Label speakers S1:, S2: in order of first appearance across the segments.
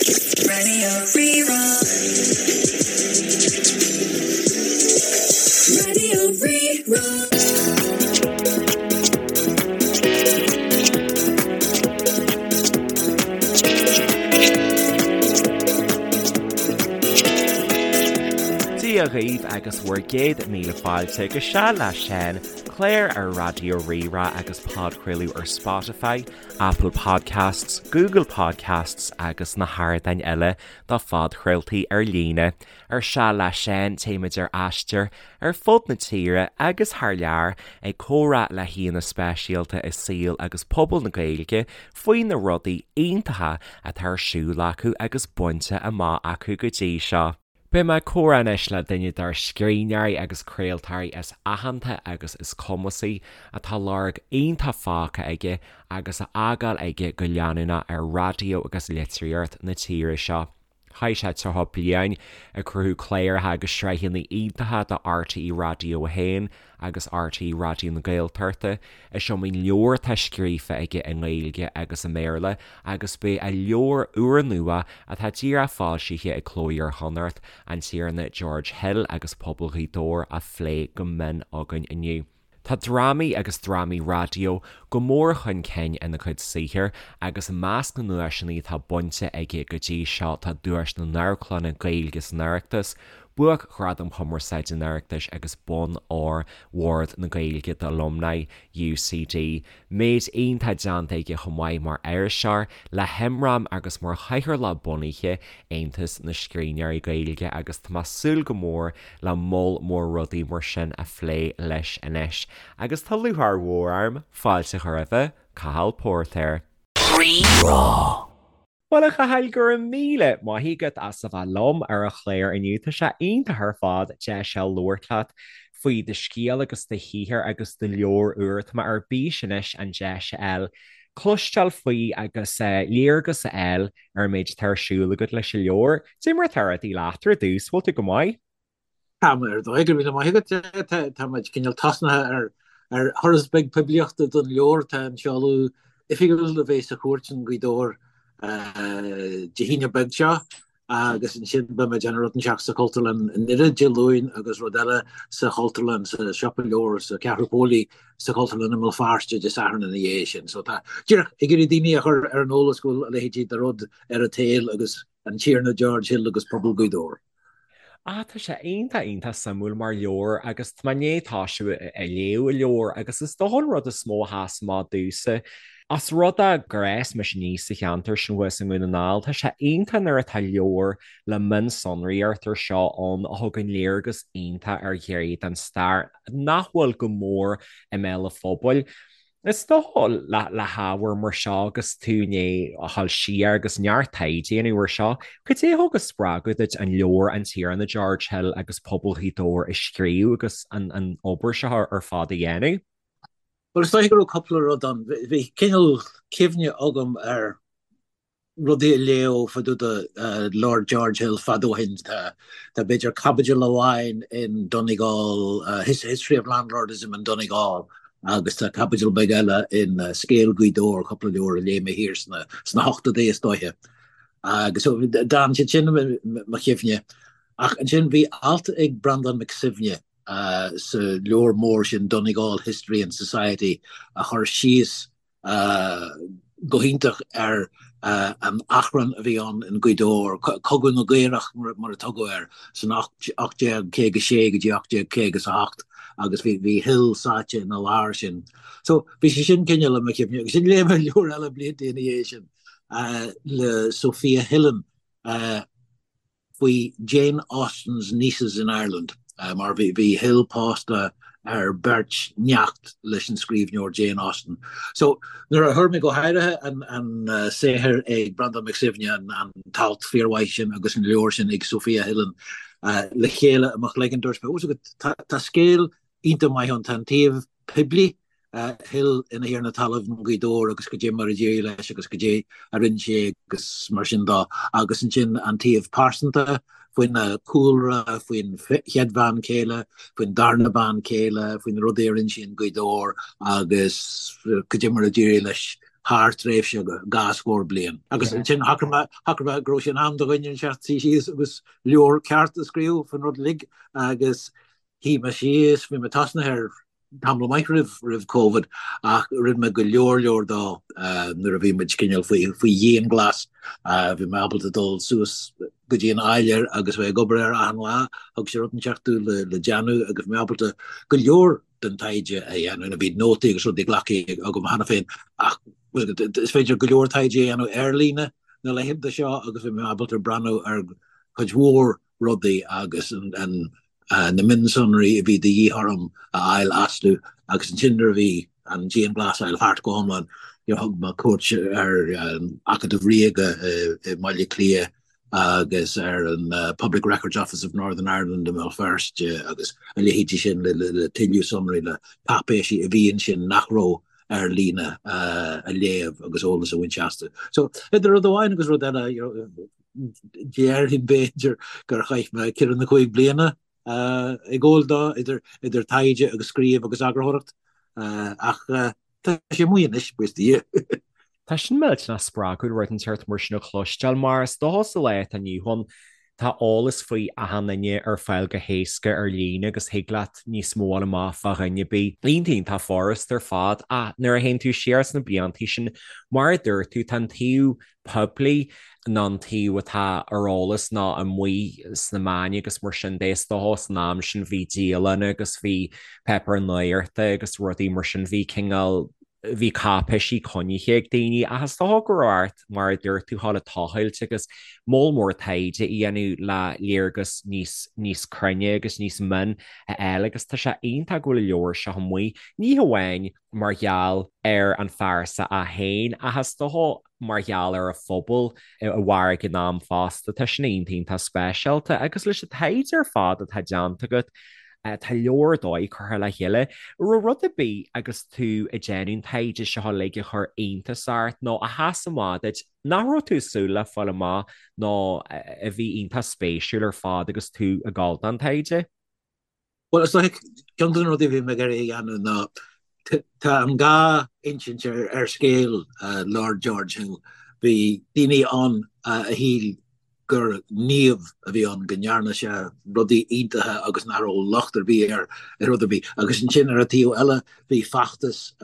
S1: Radio Rí-Rá. Radio Rí-Rá.
S2: Dia dhaoibh agus bhur gcéad míle fáilte go Seal le Seán, clár ar Raidió Rí-Rá agus podchraoladh ar Spotify, Apple Podcasts, Google Podcasts agus na hardáin eile do phodchraoltaí ar líne. Ar Seal le Seán téimid ar aistear ar fud na tíre agus thar lear ag comhrá le haíonna speisialta i saol agus pobal na Gaeilge faoi na rudaí iontacha atá ar siúl acu agus bainte amach acu go dtí seo. Beidh mé ag comhrá anois le duine dár scríbhneoirí agus craoltóirí is aitheanta agus is cumasaí atá lorg iontach fágtha aige agus á fhágáil aige go leanúnach ar raidió agus litríocht na tíre seo. Chaith sé 30 bliain ag cruthú cláracha agus sraitheanna iontacha do RTÉ Raidió 1 agus RTÉ Raidió na Gaeltachta. Is iomaí leabhar atá scríofa aige i nGaeilge agus i mBéarla agus beidh a leabhar úrnua atá díreach foilsithe ag Cló Iar-Chonnacht, An Tiarna George Hill agus Pobal Ghaoth Dobhair á phlé go mion againn inniu. Tá drámaí agus drámaí raidió go mór chun cinn ina chuid saothair agus i measc na nduaiseanna atá bainte aige go dtí seo tá Duais na nAmharclanna Gaeilge san Oireachtas, Buaicghradam Chumarsáide an Oireachtais agus Bonn Óir Bhord na Gaeilge d'Alumni UCD. Méid iontach déanta aige chomh maith mar iriseoir le hImram agus mar chathaoirleach bunaithe Aontas na Scríbhneoirí Gaeilge agus tá mé ag súil go mór le moll mór rudaí mar sin a phlé leis anois. Agus tá lúcháir mhór orm fáilte a chur roimhe, Cathal Póirtéir.
S1: Rí-Rá.
S2: Bhuel, a Chathail, go raibh míle maith agat as a bheith liom ar an chlár inniu. Tá sé iontach ar fad deis a labhairt leat faoi do scéal agus do shaothar agus do leabhar úr. Tá mé ar bís anois an deis a fháil cloisteáil faoi agus léargas a fháil ar an méid atá ar siúl agat leis an leabhar. Cad é mar atá rudaí leat ar dtús, bhfuil tú go maith?
S3: Tá mé ar dóigh, go raibh míle maith agat. Tá muid cineál tosnaithe ar thuras beag poiblíochta don leabhar. Tá an seoladh oifigiúil a bheidh sa Chúirt i nGaoth Dobhair Dé hAoine beag seo agus ansin beidh muid ag déanamh rud inteacht sa Chultúrlann i nDoire Dé Luain agus rud eile sa Chultúrlann, sa Siopa Leabhar, sa Cheathrú Póilí sa Chultúrlann i mBéal Feirste Dé Sathairn ina dhiaidh sin. So tá díreach ag iarraidh daoine a chur ar an eolas go bhfuil a leithéidí de rud ar an tsaol agus an Tiarna George Hill agus pobal Ghaoth Dobhair.
S2: Ah, tá sé iontach, iontach suimiúil mar leabhar agus tá mé i ndiaidh tosú ag léamh an leabhair agus is dócha an rud is mó a sheas amach domhsa, os rud é gur fhás mise aníos sa cheantar sin thuas i nDún na nGall, tá sé iontach nuair atá leabhar le mionsonraíocht mar seo ann a thugann léargas iontach ar ghné den stair nach bhfuil go mór i mbéal an phobail. Is dócha le hábhar mar seo agus tú i ndiaidh a dhul siar agus neart taighde a dhéanamh ar seo, cad é a thug an spreagadh duit an leabhar An Tiarna George Hill agus Pobal Ghaoth Dobhair a scríobh agus an obair seo ar fad a dhéanamh?
S3: Bhuel, is dóiche go raibh cúpla rud ann. Bhí cineál cuimhne agam ar rudaí a léadh fá dtaobh de Lord George Hill fad ó shin. Tá b'fhéidir caibidil amháin in Donegal, History of Landlordism in Donegal agus tá caibidil beag eile in Scéal Ghaoth Dobhair, cúpla leabhar a léigh mé thiar sna hochtóidí is dóiche. Agus d'fhan siad sin i mo chuimhne. Ach ansin bhí alt ag Breandán Mac Suibhne sa leabhar mór sin Donegal History and Society a chuir síos go hiontach ar an achrann a bhí ann in Gaoth Dobhair, Cogadh na gCaorach mar a tugadh air, san 1856 go dtí 1858 agus bhí Hill sáite ina lár sin. So bhí sé sin cineál i mo chuimhne agus ansin léigh mé leabhar eile blianta ina dhiaidh sin le Sofia Hillen, faoi Jane Austen's Nieces in Ireland, mar bhí Hill pósta ar bheirt neacht leis an scríbhneoir Jane Austen. So, nuair a fuair mé go háirithe an saothar ag Breandán Mac Suibhne, an t-alt fíormhaith sin agus an leabhar sin ag Sofia Hillen le chéile i mo chloigeann, dúirt mé, tá scéal iontach maith ann, tá an taobh poiblí Hill ina thiarna talaimh i nGaoth Dobhair agus cad é mar a d'éirigh leis agus cad é a rinne sé agus mar sin de. Agus ansin an taobh pearsanta, faoina chúlra, faoin chéad bhean chéile, faoin darna bean chéile, faoi na rudaí a rinne sé i nGaoth Dobhair agus cad é mar a d'éirigh leis. thar tréimhse dhá scór bliain. Agus ansin shocraigh mé, shocraigh mé go raibh sé in am do dhuine inteacht suí síos agus leabhar ceart a scríobh faoin rud uilig agus shuigh mé síos, bhí mé tosnaithe air tamall maith roimh roimh Covid ach rinne mé go leor leor dó nuair a bhí muid cineál faoi faoi dhianghlas. Bhí mé ábalta dul suas go dtí an áiléar agus bheith ag obair air achan lá, thug sé rud inteacht domh le le déanamh agus bhí mé ábalta go leor den taighde a dhéanamh. Bhí nótaí agus rudaí glactha agam cheana féin ach is féidir go leor taighde a dhéanamh ar líne na laethanta seo agus bhí mé ábalta breathnú ar chuid mhór rudaí agus na mionsonraí a bhí de dhíth orm a fháil astu agus ansin nuair a bhí an dianghlasáil thart go hiomlán thug mé cuairt ar an Acadamh Ríoga i mBaile Átha Cliath agus ar an Public Records Office of Northern Ireland i mBéal Feirste agus a leithéidí sin le tuilleadh sonraí, le cáipéisí a bhí ansin nach raibh ar líne a léamh agus eolas a bhaint astu. So idir rud amháin agus rud eile, déarfainn b'fhéidir gur chaith mé ceithre nó cúig bliana ag gabháil dó, idir taighde agus scríobh agus eagarthóireacht, ach tá sé amuigh anois, buíochas do Dhia.
S2: Tá sin millteanach spreagúil rud inteacht mar sin a chloisteáil, mar is dócha sa lá atá inniu ann, tá eolas faoi achan duine ar fáil go héasca ar líne agus thig leat níos mó a fháil amach fá dhuine ar bith. Iontach, iontach furast ar fad ach nuair a théann tú siar sna bliantaí sin, mar a dúirt tú, tá an taobh poiblí nó an taobh atá ar eolas nó amuigh sna meáin agus mar sin de. Is dócha san am sin bhí dialanna agus bhí páipéir nuachta agus rudaí mar sin, bhí cineál, bhí cáipéisí coinnithe ag daoine ach is dócha go raibh ort, mar a dúirt tú, dhul ag tochailt agus moll mór taighde a dhéanamh le léargas níos, níos cruinne agus níos mine a fháil agus tá sé iontach go bhfuil an leabhar seo amuigh, ní hamháin mar gheall ar an phearsa é féin ach is dócha mar gheall ar an phobal a mhair ag an am fosta. Tá sin iontach iontach speisialta agus leis an taighde ar fad atá déanta agat, tá leabhar ar dóigh curtha le chéile. Raibh rud ar bith agus tú ag déanamh an taighde seo uilig a chuir iontas ort nó a sheas amach duit nach raibh tú ag súil le fáil amach nó a bhí iontach spéisiúil ar fad agus tú ag gabháil don taighde?
S3: Bhuel, is dóiche, ceann de na rudaí a bhí mé ag iarraidh a dhéanamh ná, tá an dhá insint ar scéal Lord George Hill. Bhí daoine ann a shíl gur naomh a bhí ann, go ndearna sé rudaí iontacha agus nach raibh locht ar bith air ar rud ar bith. Agus ansin ar an taobh eile bhí feachtas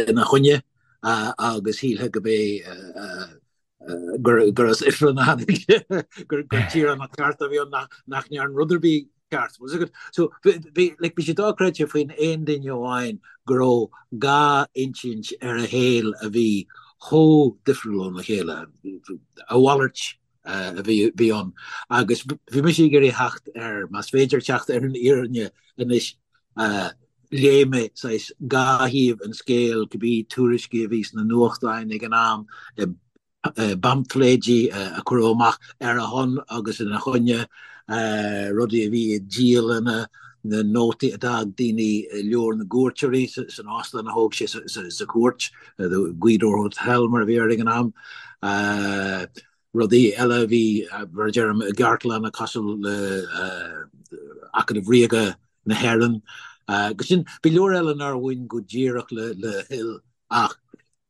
S3: ina choinne agus shílfeá go b'é gur as ifreann a tháinig sé, gur tíoránach ceart a bhí ann nach ndearna rud ar bith ceart. So bhí like, bhí sé dochreidte faoin aon duine amháin go raibh dhá insint ar a shaol a bhí chomh difriúil óna chéile, a mhalairt a bhí bhí ann. Agus bhí mise ag iarraidh theacht ar, más féidir teacht ar an fhírinne anois, léigh mé saghas dhá thaobh an scéil, cibé tuairiscí a bhí sna nuachtáin ag an am, i bpaimfléidí a cuireadh amach ar a shon agus ina choinne, rudaí a bhí i dialanna, na nótaí a d'fhág daoine i leabhar na gcuairteoirí san óstán a thóg sé sa chúirt, the Gweedore Hotel mar a bhí air ag an am. Rudaí eile a bhí, mar a deirim, i gcartlanna cosúil le Acadamh Ríoga na hÉireann. Agus sin, bhí leor eile nár bhain go díreach le Hill ach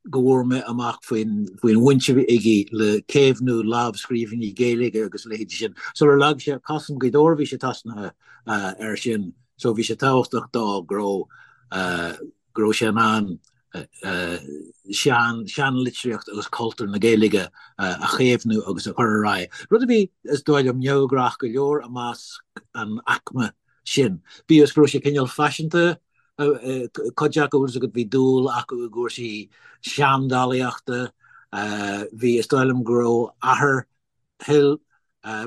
S3: go bhfuair mé amach faoin bhaint a bhí aige le caomhnú lámhscríbhinní Gaeilge agus a leithéidí sin. Sular leag sé cos in Gaoth Dobhair bhí sé tosnaithe air sin so bhí sé tábhachtach dó go raibh go raibh sé in ann sean seanlitríocht agus cultúr na Gaeilge a chaomhnú agus a chur ar aghaidh. Rud a bhí, is dóigh liom, neamhghnách go leor i measc an aicme sin. Bíodh is go raibh sé cineál faiseanta, cuid acu, bhfuil a fhios agat, bhí dúil acu i gcúrsaí seandálaíochta, bhí, is dóigh liom go raibh athair Hill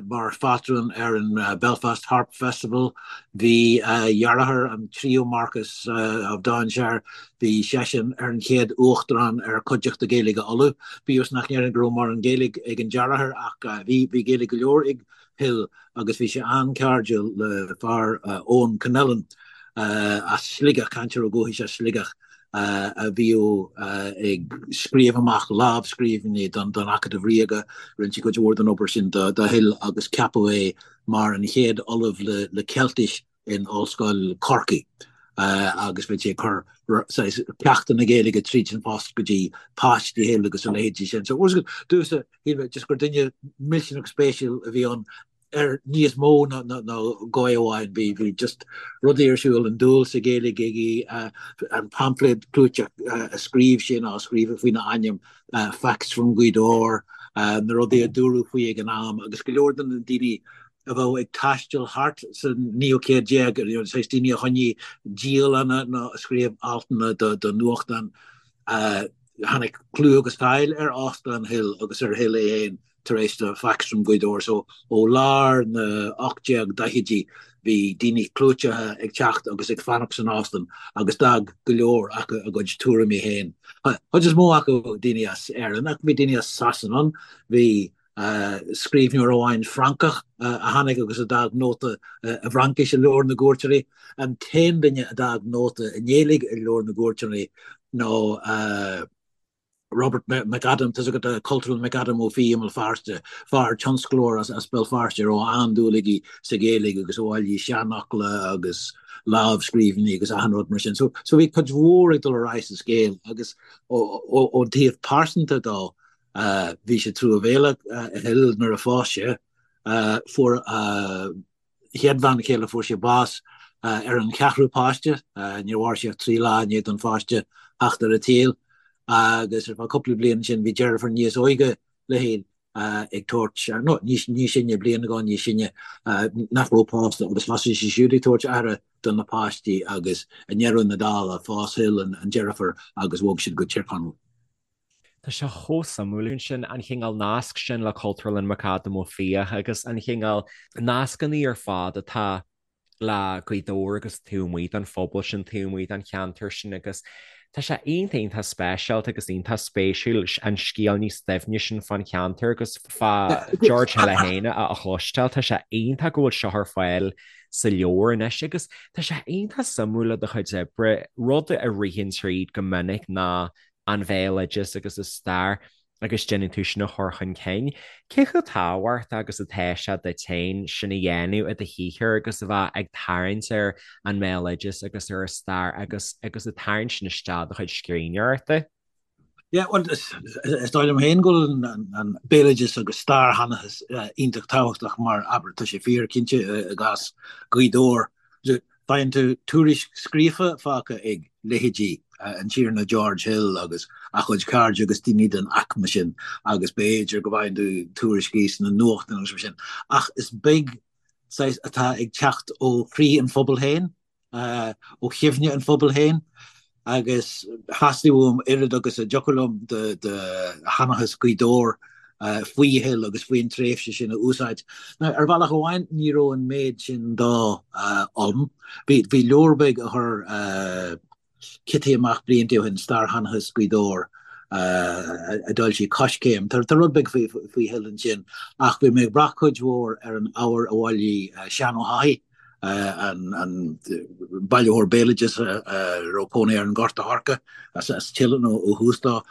S3: mar phátrún ar an Belfast Harp Festival. Bhí a dheartháir, an tríú Marquess of Downshire, bhí seisean ar an chéad uachtarán ar Chuideachta Gaeilge Uladh. Bíodh is nach ndéarfainn go raibh mórán Gaeilge ag an deartháir ach bhí, bhí Gaeilge go leor ag Hill agus bhí sé an-chairdiúil le fear Eoin Connellan as Sligeach, cainteoir ó dhúchas as Sligeach a bhíodh ag scríobh amach lámhscríbhinní don Acadamh Ríoga. Rinne sé cuid mhór den obair sin do Hill agus ceapadh é mar an chéad ollamh le Ceiltis in Ollscoil Chorcaí. agus bhí sé ag cur saghas ceachtanna Gaeilge tríd an phost go dtí páistí Hill agus a leithéidí sin. So domhsa, shíl mé just gur duine millteanach spéisiúil a bhí ann ar níos mó ná dhóigh amháin. Bhí bhí just rudaí ar siúl, an dúil sa Ghaeilge aige, an paimfléad clúiteach a scríobh sé nó a scríobhadh faoina ainm, Facts from Gaoth Dobhair, na rudaí a dúradh faoi ag an am agus go leor de na daoine a bheadh ag taisteal thart sa naoú céad déag, saghas daoine a choinnigh dialanna nó a scríobh altanna do nuachtáin. Tháinig clú agus cáil ar Óstán Hill agus ar Hill é féin tar éis do Facts from Gaoth Dobhair. So ó lár na 1840idí bhí daoine clúiteacha ag teacht agus ag fanacht san óstán agus d'fhág go leor acu a gcuid tuairimí féin. Chuid is mó acu daoine as Éirinn ach bhí daoine as Sasana ann, bhí scríbhneoir amháin Francach a tháinig agus a d'fhág nóta i bhFraincis i Leabhar na gCuairteoirí. An t-aon duine a d'fhág nóta i nGaeilge i Leabhar na gCuairteoirí ná Robert McAdam, tá's agat, Cultúrlann McAdam Ó Fiaich i mBéal Feirste, fear tionsclóir as Béal Feirste a raibh an-dúil aige sa Ghaeilge agus a bhailigh seanfhocla agus lámhscríbhinní agus achan rud mar sin. So bhí cuid mhór ag dul ar aghaidh sa scéal agus ón taobh pearsanta dó, Bhí sé truamhéalach Hill nuair a phós sé. Fuair a chéad bhean chéile, fuair sé bás ar an cheathrú páiste. Níor mhair sí ach 3 lá i ndiaidh don pháiste theacht ar an tsaol. Agus ar feadh cúpla bliain ansin bhí deirfiúr níos óige le Hill ag tabhairt, nó níos sine, bliain nó dhó níos sine, nach raibh pósta agus thosaigh sí siúd ag tabhairt aire do na páistí agus i ndeireadh na dála phós Hill an deirfiúr agus bhog siad go Tír Chonaill.
S2: Tá sé chomh suimiúil ansin, an chineál nasc sin le Cultúrlann McAdam Ó Fiaich agus an chineál nascanna ar fad atá le Gaoth Dobhair agus taobh amuigh den phobal sin, taobh amuigh den cheantar sin agus tá sé iontach iontach speisialta agus iontach spéisiúil an scéal níos doimhne sin fán cheantar agus fá George Hill é féin a chloisteáil. Tá sé iontach go bhfuil seo ar fáil sa leabhar anois agus tá sé iontach suimiúil le do chuid oibre, rud a ritheann tríd go minic ná an bhéaloideas agus an stair agus déanann tú sin a chur chun cinn. Cé chomh tábhachtach agus atá sé duit féin sin a dhéanamh i do shaothar agus a bheith ag tarraingt ar an mbéaloideas agus ar an stair agus agus ag tarraingt sin isteach i do chuid scríbhneoireachta?
S3: Yeah, well, is dóigh liom féin go bhfuil an béaloideas agus stairsheanchas iontach tábhachtach mar, abair, tá sé fíor cinnte i gcás Ghaoth Dobhair. Faigheann tú tuairisc scríofa fágtha ag leithéidí an Tiarna George Hill agus a chuid cairde agus daoine den aicme sin agus b'fhéidir go bhfaigheann tú tuairiscí sna nuachtáin agus mar sin ach is beag saghas atá ag teacht ó chroí an phobail féin, ó chuimhne an phobail féin agus theastaigh uaim oiread agus a dtiocfadh liom de sheanchas Ghaoth Dobhair faoi Hill agus faoin tréimhse sin a úsáid. Now, ar bhealach amháin, ní raibh an méid sin dó ann. Bhí leabhar beag a chuir Cití amach blianta ó shin, Stairsheanchas Ghaoth Dobhair, a d'fhoilsigh Coiscéim. Tá rud beag faoi Hill ansin, ach bhí mé ag brath cuid mhór ar an ábhar a bhailigh Seán Ó hEochaidh, an bailitheoir béaloidis a raibh cónaí air in Gort a' Choirce, as Teileann ó thús dó.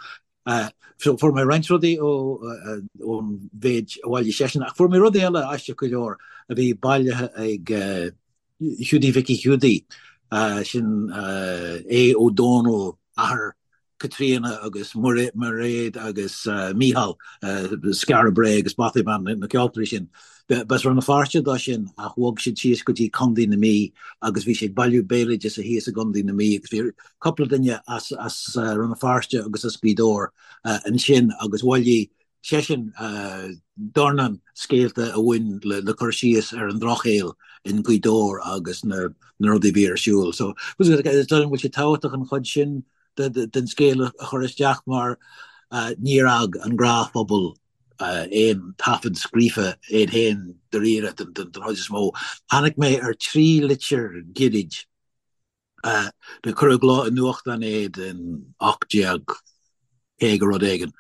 S3: So fuair mé roinnt rudaí ón mhéid a bhailigh seisean, ach fuair mé rudaí eile aisteach go leor a bhí bailithe ag Hiúdaí Mhicí Hiúdaí, sin Aodh Ó Dónaill, athair Caitríona agus Mairéad agus Mícheál, Skara Brae agus Bothy Band, na ceoltóirí sin. B'as Rann na Feirste dó sin ach bhog siad síos go dtí Contae na Mí agus bhí sé ag bailiú béaloideasa thíos i gContae na Mí agus bhí cúpla duine as Rann na Feirste agus as Gaoth Dobhair ansin agus bhailigh seisean dornán scéalta a bhain le cur síos ar an drochshaol in Gaoth Dobhair agus na rudaí a bhí ar siúl. So is dóigh liom go bhfuil sé tábhachtach an chuid sin den scéal a chur isteach mar níor fhág an gnáthphobal aon taifead scríofa iad féin dáiríre den chuid is mó. Tháinig mé ar thrí litir ghirid Do cuireadh i gcló i nuachtán iad in 1850 rud éigin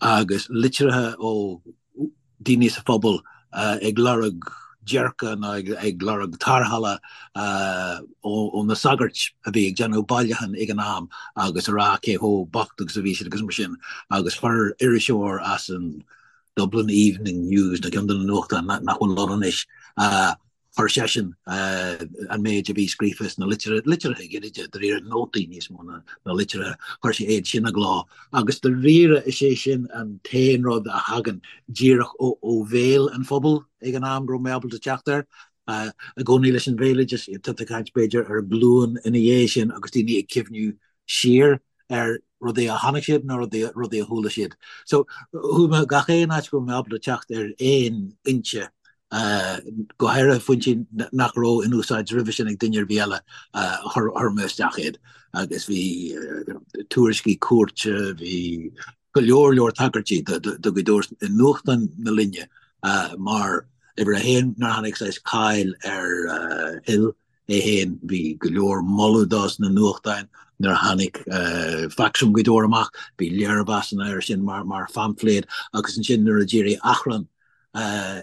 S3: agus litreacha ó daoine sa phobal ag lorg déirce nó ag lorg tarrthála ó na sagairt a bhí ag déanamh bailiúchán ag an am agus a rá cé chomh bocht agus a bhí siad agus mar sin agus chuir iriseoir as an Dublin Evening News nó ceann de na nuachtáin nach bhfuil ann anois. Chuir seisean an méid a bhí scríofa sna litreacha gairide, dáiríre, nótaí níos mó ná litreacha, chuir sé iad sin i gcló agus dáiríre is é sin an t-aon rud a thagann díreach ó bhéal an phobail ag an am go raibh mé ábalta teacht air. I gcónaí leis an bhéaloideas, tá tú ag caint b'fhéidir ar ghlúin ina dhiaidh sin agus daoine ag cuimhniú siar ar rudaí a chonaic siad nó rudaí a chuala siad. So chuaigh mé gach aon áit go raibh mé ábalta teacht ar aon fhoinse, go háirithe foinsí nach raibh in úsáid roimhe sin ag duine ar bith eile, chuir mé isteach iad. Agus bhí tuairiscí cúirte, bhí go leor leor tagairtí do Ghaoth Dobhair i nuachtáin na linne mar uimhir a haon nuair a tháinig saghas cáil ar Hill é féin, bhí go leor moladh dó sna nuachtáin nuair a tháinig Facs ó Ghaoth Dobhair amach, bhí léirmheasanna air sin mar phaimfléad agus ansin nuair a d'éirigh achrann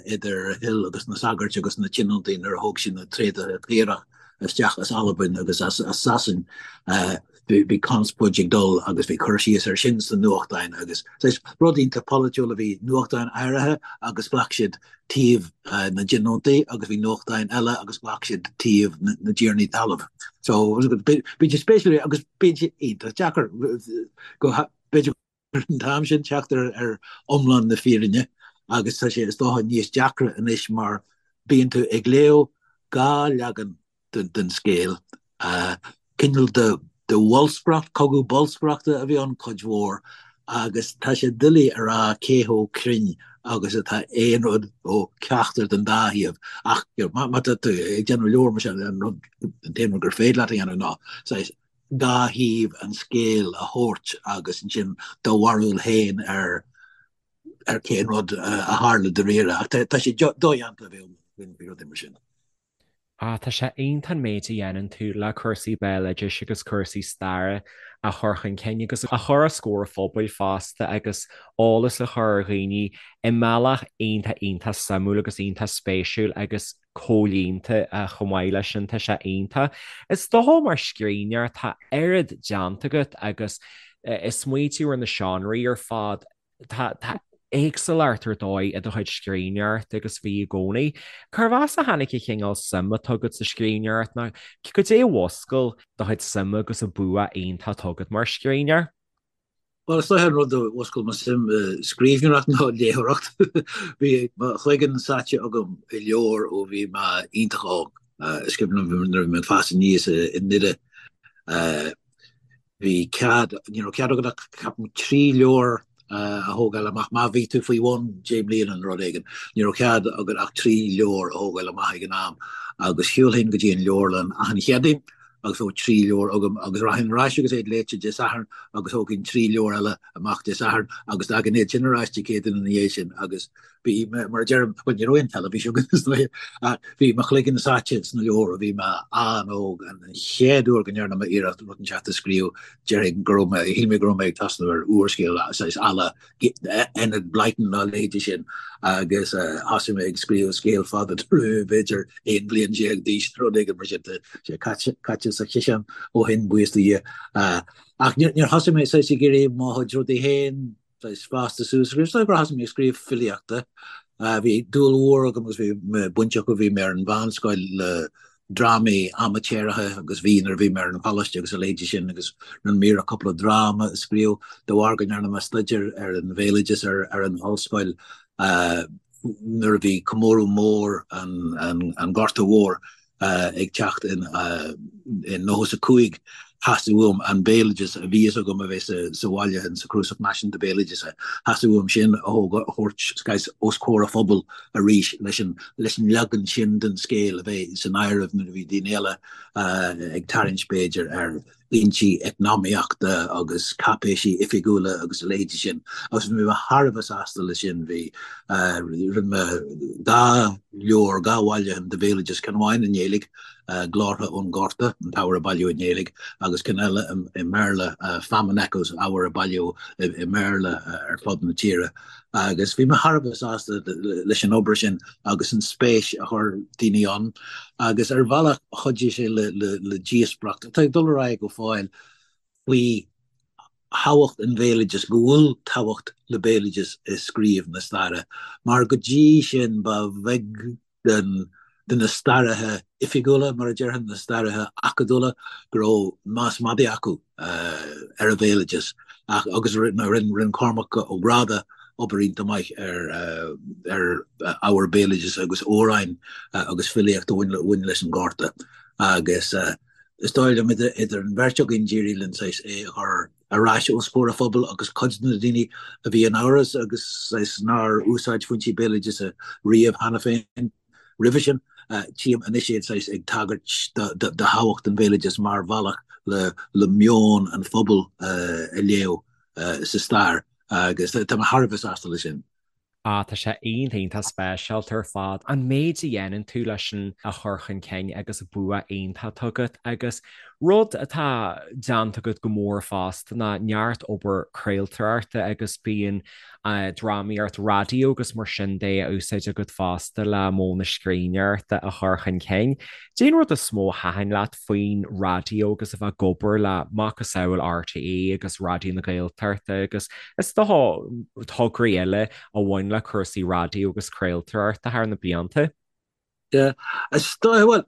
S3: idir Hill agus na sagairt agus na tionóntaí nuair a thóg siad na tréadaithe caorach isteach as Albain agus as Sasain. Bhí conspóid ag dul agus bhí cur síos air sin sna nuachtáin agus saghas rud iontach polaitiúil a bhí nuachtáin áirithe agus ghlac siad taobh na dtionóntaí agus bhí nuachtáin eile agus ghlac siad taobh na dtiarnaí talaimh. So bíonn sé spéisiúil agus bíonn sé iontach deacair go b'fhéidir an t-am sin teacht ar iomlán na fírinne agus tá sé is dócha níos deacra anois mar bíonn tú ag léamh dhá leagan den scéal, cineál de bholscaireacht, cogadh bolscaireachta a bhí ann cuid mhór agus tá sé doiligh a rá cé chomh cruinn agus atá aon rud ó cheachtar den dá thaobh ach má tá tú ag déanamh leabhar mar sin an rud an t-aon rud gur féidir leat a dhéanamh ná saghas dhá thaobh an scéil a thabhairt agus ansin do bharúil féin ar ar cén rud a tharla dáiríre. Ach tá sé dodhéanta a bheith faoi rudaí mar sin.
S2: Ah, tá sé iontach an méid a dhéanann tú le cúrsaí béaloidis agus cúrsaí staire a chur chun cinn agus a chur os comhair an phobail fosta agus eolas a chur ar dhaoine i mbealach iontach iontach suimiúil agus iontach spéisiúil agus comhlíonta chomh maith leis sin, tá sé iontach. Is dócha mar scríbhneoir tá oiread déanta agat agus ag smaoitiú ar na seánraí ar fad, tá tá éagsúlacht ar dóigh i do chuid scríbhneoireachta agus bhí i gcónaí. Cérbh as a tháinig an chineál suim atá agat sa scríbhneoireacht nó cad é a mhúscail do chuid suime agus an bua iontach atá agat mar scríbhneoir?
S3: Bhuel, is dóiche an rud a mhúscail mo suim i scríbhneoireacht ná léitheoireacht. Bhí mo chloigeann sáite agam i leabhair ó bhí mé iontach óg. Is cuimhin liom nuair a bhí mé ag fás aníos i nDoire, bhí cead, ní raibh cead agat ach ceapaim 3 leabhar a thógáil amach má bhí tú faoi bhun deich mbliana nó rud éigin. Ní raibh cead agat ach 3 leabhar a thógáil amach ag an am agus shiúlfainn go dtí an leabharlann achan Chéadaoin agus bheadh 3 leabhar agam agus rachainn ar ais agus iad léite Dé Sathairn agus thógfainn 3 leabhar eile amach Dé Sathairn agus d'fhágainn iad sin ar ais Dé Céadaoin ina dhiaidh sin agus bhí mé, mar a deirim, bhuel ní raibh aon teilifís againn is dóiche ach bhí mo chloigeann sáite sna leabhair ó bhí mé an-óg. An chéad uair go ndearna mé iarracht rud inteacht a scríobh déarfainn go raibh mé, shíl mé go raibh mé ag tosnú ar úrscéal saghas à la Enid Blyton nó a leithéidí sin agus thosaigh mé ag scríobh scéal fada nuair a bhí mé b'fhéidir 11 bliain d'aois nó rud éigin mar sin. Tá sé caite sa chiseán ó shin, buíochas do Dhia. Ach níor thosaigh mé saghas ag iarraidh mo chuid rudaí féin saghas fásta suas a scríobh. Is dóigh gur thosaigh mé ag scríobh filíochta. Bhí dúil mhór agam agus bhí mé bainteach ó bhí mé ar an mheánscoil le drámaí amaitéaracha agus bhí nuair a bhí mé ar an choláiste agus a leithéidí sin agus rinne mé iarracht cúpla dráma a scríobh de bharr go ndearna mé staidéar ar an bhéaloideas ar an ollscoil nuair a bhí comóradh mór an Ghorta Mhóir ag teacht in 95 theastaigh uaim an béaloideas a bhí fhios agam a bheith sa bhaile in sa Chnuasach Náisiúnta Béaloideasa, theastaigh uaim sin a thabhairt os comhair an phobail arís leis an leis an leagan sin den scéal a bheith san áireamh nuair a bhí daoine eile ag tarraingt b'fhéidir ar fhoinsí eacnamaíochta agus cáipéisí oifigiúla agus a leithéidí sin agus bhí mé thar a bheith sásta leis sin. Bhí, rinne mé dhá leabhar, dhá bhailiúchán de bhéaloideas, ceann amháin i nGaeilge, Glórtha ón nGorta, an t-ábhar a bailíodh i nGaeilge, agus ceann eile i mBéarla, Famine Echoes, ábhar a bailíodh i mBéarla ar fud na tíre. Agus bhí mé thar a bheith sásta leis an obair sin agus an spéis a chuir daoine ann agus ar bhealach chuidigh sé le díospóireacht atá ag dul ar aghaidh go fóill faoi thábhacht an bhéaloidis, go bhfuil tábhacht le béaloideas i scríobh na staire mar go dtí sin ba bheag den. de na staraithe oifigiúla, mar a déarfainn, na staraithe acadúla, go raibh meas madaidh acu ar an bhéaloideas. Ach, agus rinne Cormac Ó Gráda obair iontach maith ar ar ábhar béaloidis agus amhráin agus filíocht a bhain leis an Ghorta. Agus is dóigh liom idir an bheirt againn d'éirigh linn saghas é a chur ar ais os comhair an phobail agus cuid de na daoine a bhí in amhras agus saghas nár úsáid foinsí béaloideasa riamh cheana féin roimhe sin, tchím anois iad saghas ag tagairt do thábhacht an bhéaloidis mar bhealach le meon an phobail a léamh sa stair agus tá mé thar a bheith sásta leis sin.
S2: Ah, tá sé iontach, iontach speisialta ar fad, an méid a dhéanann tú leis sin a chur chun cinn agus bua iontach atá agat agus rud atá déanta agat go mór fosta ná neart obair craoltóireachta agus bíonn drámaíocht raidió agus mar sin de á úsáid agat fosta le modh na scríbhneoireachta a chur chun cinn. Cad é an rud is mó a thaitin leat faoin raidió agus a bheith ag obair le macasamhail RTÉ agus Raidió na Gaeltachta agus is dócha tograí eile a bhain le cúrsaí raidió agus craoltóireachta thar na blianta.
S3: Yeah, is dóigh, bhuel,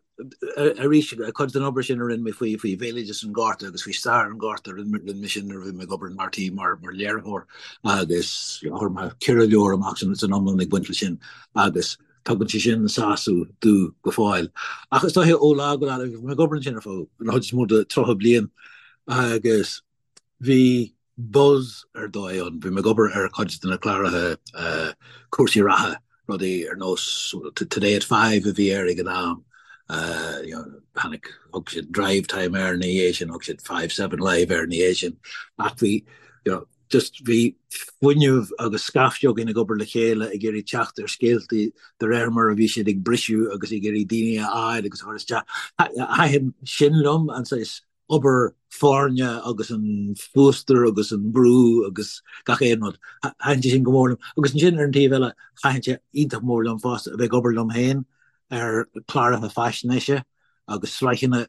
S3: arís, cuid den obair sin a rinne mé faoi faoi bhéaloideas an Ghorta agus faoi stair an Ghorta, rinne mé sin nuair a bhí mé ag obair in RTÉ mar mar léiritheoir agus chuir mé ceithre leabhar amach san iomlán ag baint leis sin agus Tugann sé sin sásamh domh go fóill. Ach is dóiche ó lá go lá, bhí mé ag obair ansin ar feadh an chuid is mó de 30 bliain agus bhí buzz ar dóigh ann. Bhí mé ag obair ar chuid de na cláracha cúrsaí reatha, rudaí ar nós Today at Five a bhí air ag an am. Tháinig, thug siad Drivetime air ina dhiaidh sin, thug siad 5 7 Live air ina dhiaidh sin. Ach bhí, you know, just bhí fuinneamh agus scaifte againn ag obair le chéile ag iarraidh teacht ar scéaltaí de réir mar a bhí siad ag briseadh agus ag iarraidh daoine a fháil agus a chur isteach. Thaitin sin liom, an saghas obair foirne agus an fuastar agus an brú agus gach aon rud. Thaitin sé sin go mór liom. Agus ansin ar an taobh eile, thaitin sé iontach mór liom fosta a bheith ag obair liom féin ar chláracha faisnéise agus sraitheanna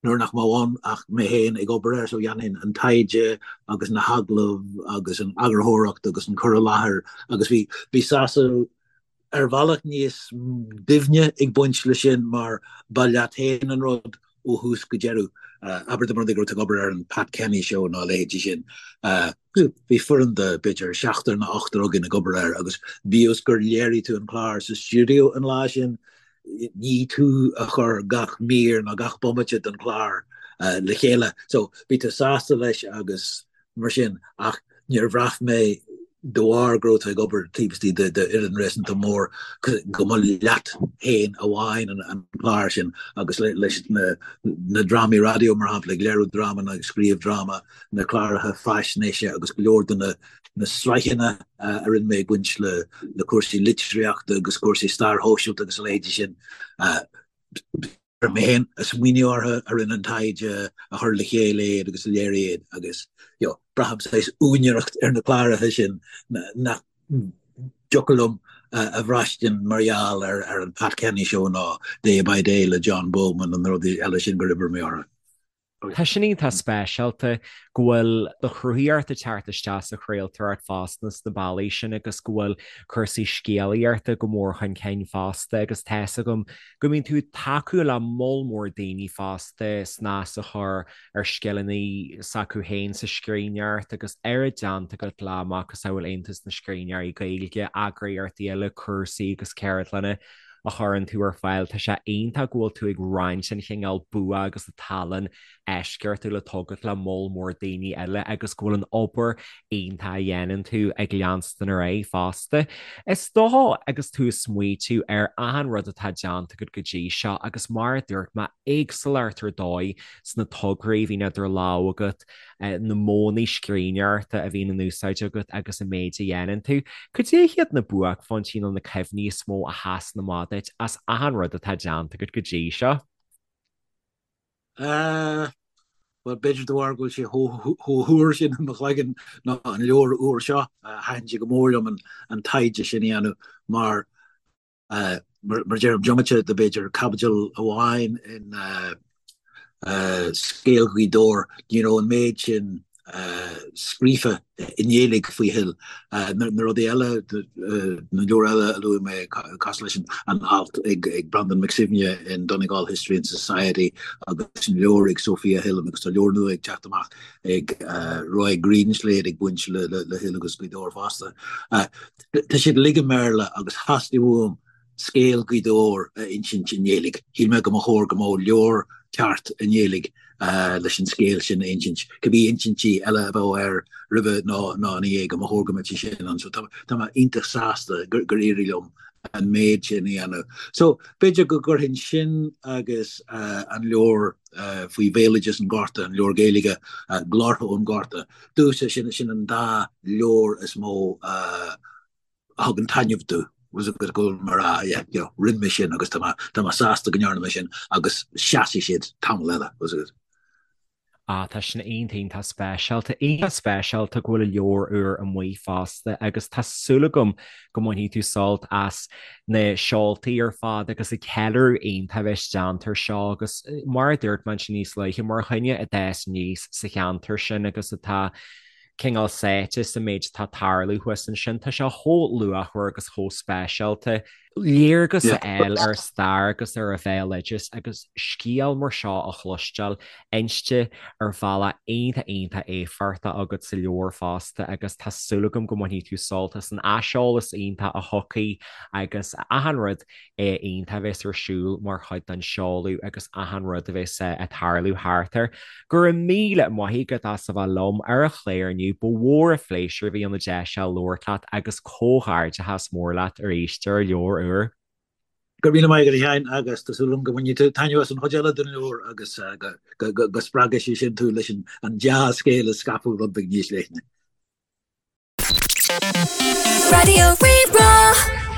S3: nuair nach mbeadh ann ach mé féin ag obair air so dhéanfainn an taighde agus na hagallaimh agus an eagarthóireacht agus an cur i láthair agus bhí bhí sásamh ar bhealach níos doimhne ag baint leis sin mar ba leat féin an rud ó thús go deireadh. Abair dá mba rud é go raibh tú ag obair ar an Pat Kenny Show nó a leithéidí sin. Bhí foireann de b'fhéidir seachtar nó ochtar againn ag obair air agus bíodh is gur léirigh tú an clár sa stiúideo an lá sin, ní tú a chuir gach mír nó gach bomaite den chlár le chéile. So bhí tú sásta leis agus mar sin ach níor bhraith mé de bharr go raibh tú ag obair taobh istigh d'fhoireann réasúnta mór go mba leat féin amháin an clár sin agus leis na na drámaí raidió mar shampla ag léiriú dráma nó ag scríobh dráma, na cláracha faisnéise agus go leor de na na sraitheanna a rinne mé ag baint le cúrsaí litríochta agus cúrsaí stair shóisialta agus a leithéidí sin. Mé féin a smaoinigh orthu, a rinne an taighde, a chuir le chéile iad agus a léirigh iad agus you know, braithim saghas úinéireacht ar na cláracha sin nach dtiocfadh liom a bhraistint mar gheall ar ar an Pat Kenny Show nó Day by Day le John Bowman nó na rudaí eile sin gur oibrigh mé orthu.
S2: Tá sin iontach speisialta go bhfuil do chruthaíocht ag teacht isteach sa chraoltóireacht fosta sna bealaí sin agus go bhfuil cúrsaí scéalaíochta go mór chun cinn fosta agus tá 'fhios agam go mbíonn tú ag tacú le moll mór daoine fosta snas a chur ar scileanna s'acu féin sa scríbhneoireacht agus oiread déanta agat le macasamhail Aontas na Scríbhneoirí Gaeilge, eagraíochtaí eile, cúrsaí agus ceardlanna a chuireann tú ar fáil. Tá sé iontach go bhfuil tú ag roinnt an chineál bua agus an tallann eisceachtúil atá agat le moll mór daoine eile agus go bhfuil an obair iontach a dhéanann tú ag leanstan ar aghaidh fosta. Is dócha agus tú ag smaoitiú ar achan rud atá déanta agat go dtí seo agus mar a dúirt mé, éagsúlacht ar dóigh sna tograí a bhíonn idir lámha agat, na modhanna scríbhneoireachta a bhíonn in úsáid agat agus an méid a dhéanann tú. Cad é hiad na buaicphointí nó na cuimhní is mó a sheasann amach duit as achan rud atá déanta agat go dtí seo?
S3: Bhuel, b'fhéidir de bharr go bhfuil sé chomh húr sin i mo chloigeann ná an leabhar úr seo, thaitin sé go mór liom an taighde sin a dhéanamh mar Mar deirim, diomaite de b'fhéidir caibidil amháin in Scéal Ghaoth Dobhair, ní raibh an méid sin. scríofa i nGaeilge faoi Hill. Na rudaí eile, na leabhair eile a luaigh mé, cosúil leis an alt ag Breandán Mac Suibhne in Donegal History and Society agus an leabhar ag Sophia Hill agus tá leabhar nua ag teacht amach ag Roy Greenslade ag baint le Hill agus Gaoth Dobhair fosta. Tá siad uilig i mBéarla agus theastaigh uaim scéal Ghaoth Dobhair a insint i nGaeilge. Shíl mé go mba chóir go mbeadh leabhar ceart i nGaeilge leis an scéal sin a insint, cibé insintí eile a bheadh air roimhe nó ina dhiaidh, go mba chóir go mbeadh sé sin ann. So tá mé iontach sásta gur éirigh liom an méid sin a dhéanamh. So b'fhéidir go gcuirfinn sin agus an leabhar faoi bhéaloideas an Ghorta, an leabhar Gaeilge, Glórtha ón Ghorta, domhsa sin an dá leabhar is mó a thugann taitneamh domh go bhfuil mé ag rá yeah you know rinne mé sin agus tá mé tá mé sásta go ndearna mé sin agus seasfaidh siad tamall eile was it.
S2: Ah tá sin iontach iontach speisialta, iontach speisialta go bhfuil an leabhar úr amuigh fosta agus tá súil agam go mbainfidh tú sult as na seoltaí ar fad agus an ceiliúradh iontach a bheas déanta air seo agus mar a dúirt mé ansin níos luaithe mar dhuine a d'fhás aníos sa cheantar sin agus atá cineál sáite sa méid atá ag tarlú thuas ansin. Tá sé chomh luachmhar agus chomh speisialta. Léargas a fháil ar stair agus ar an bhéaloideas agus scéal mar seo a chloisteáil inste ar bhealach iontach iontach éifeachtach agat sa leabhar fosta agus tá súil agam go mbainfidh tú sult as an aiseolas iontach a thiocfaidh agus achan rud iontach a bheas ar siúl mar chuid den seoladh agus achan rud a bheas ag tarlú thart air. Go raibh míle maith agat as a bheith liom ar an chlár inniu, ba mhór an phléisiúr a bhí ann an deis seo labhairt leat agus comhghairdeachas mór leat arís ar an leabhar úr.
S3: Go raibh míle maith agat a Sheáin agus tá súil agam go mbainfidh tú taitneamh as an chuid eile den leabhar agus go spreagfaidh sé sin tú leis an dea-scéal a scaipeadh rud beag níos leithne.
S1: Raidió Rí-Rá.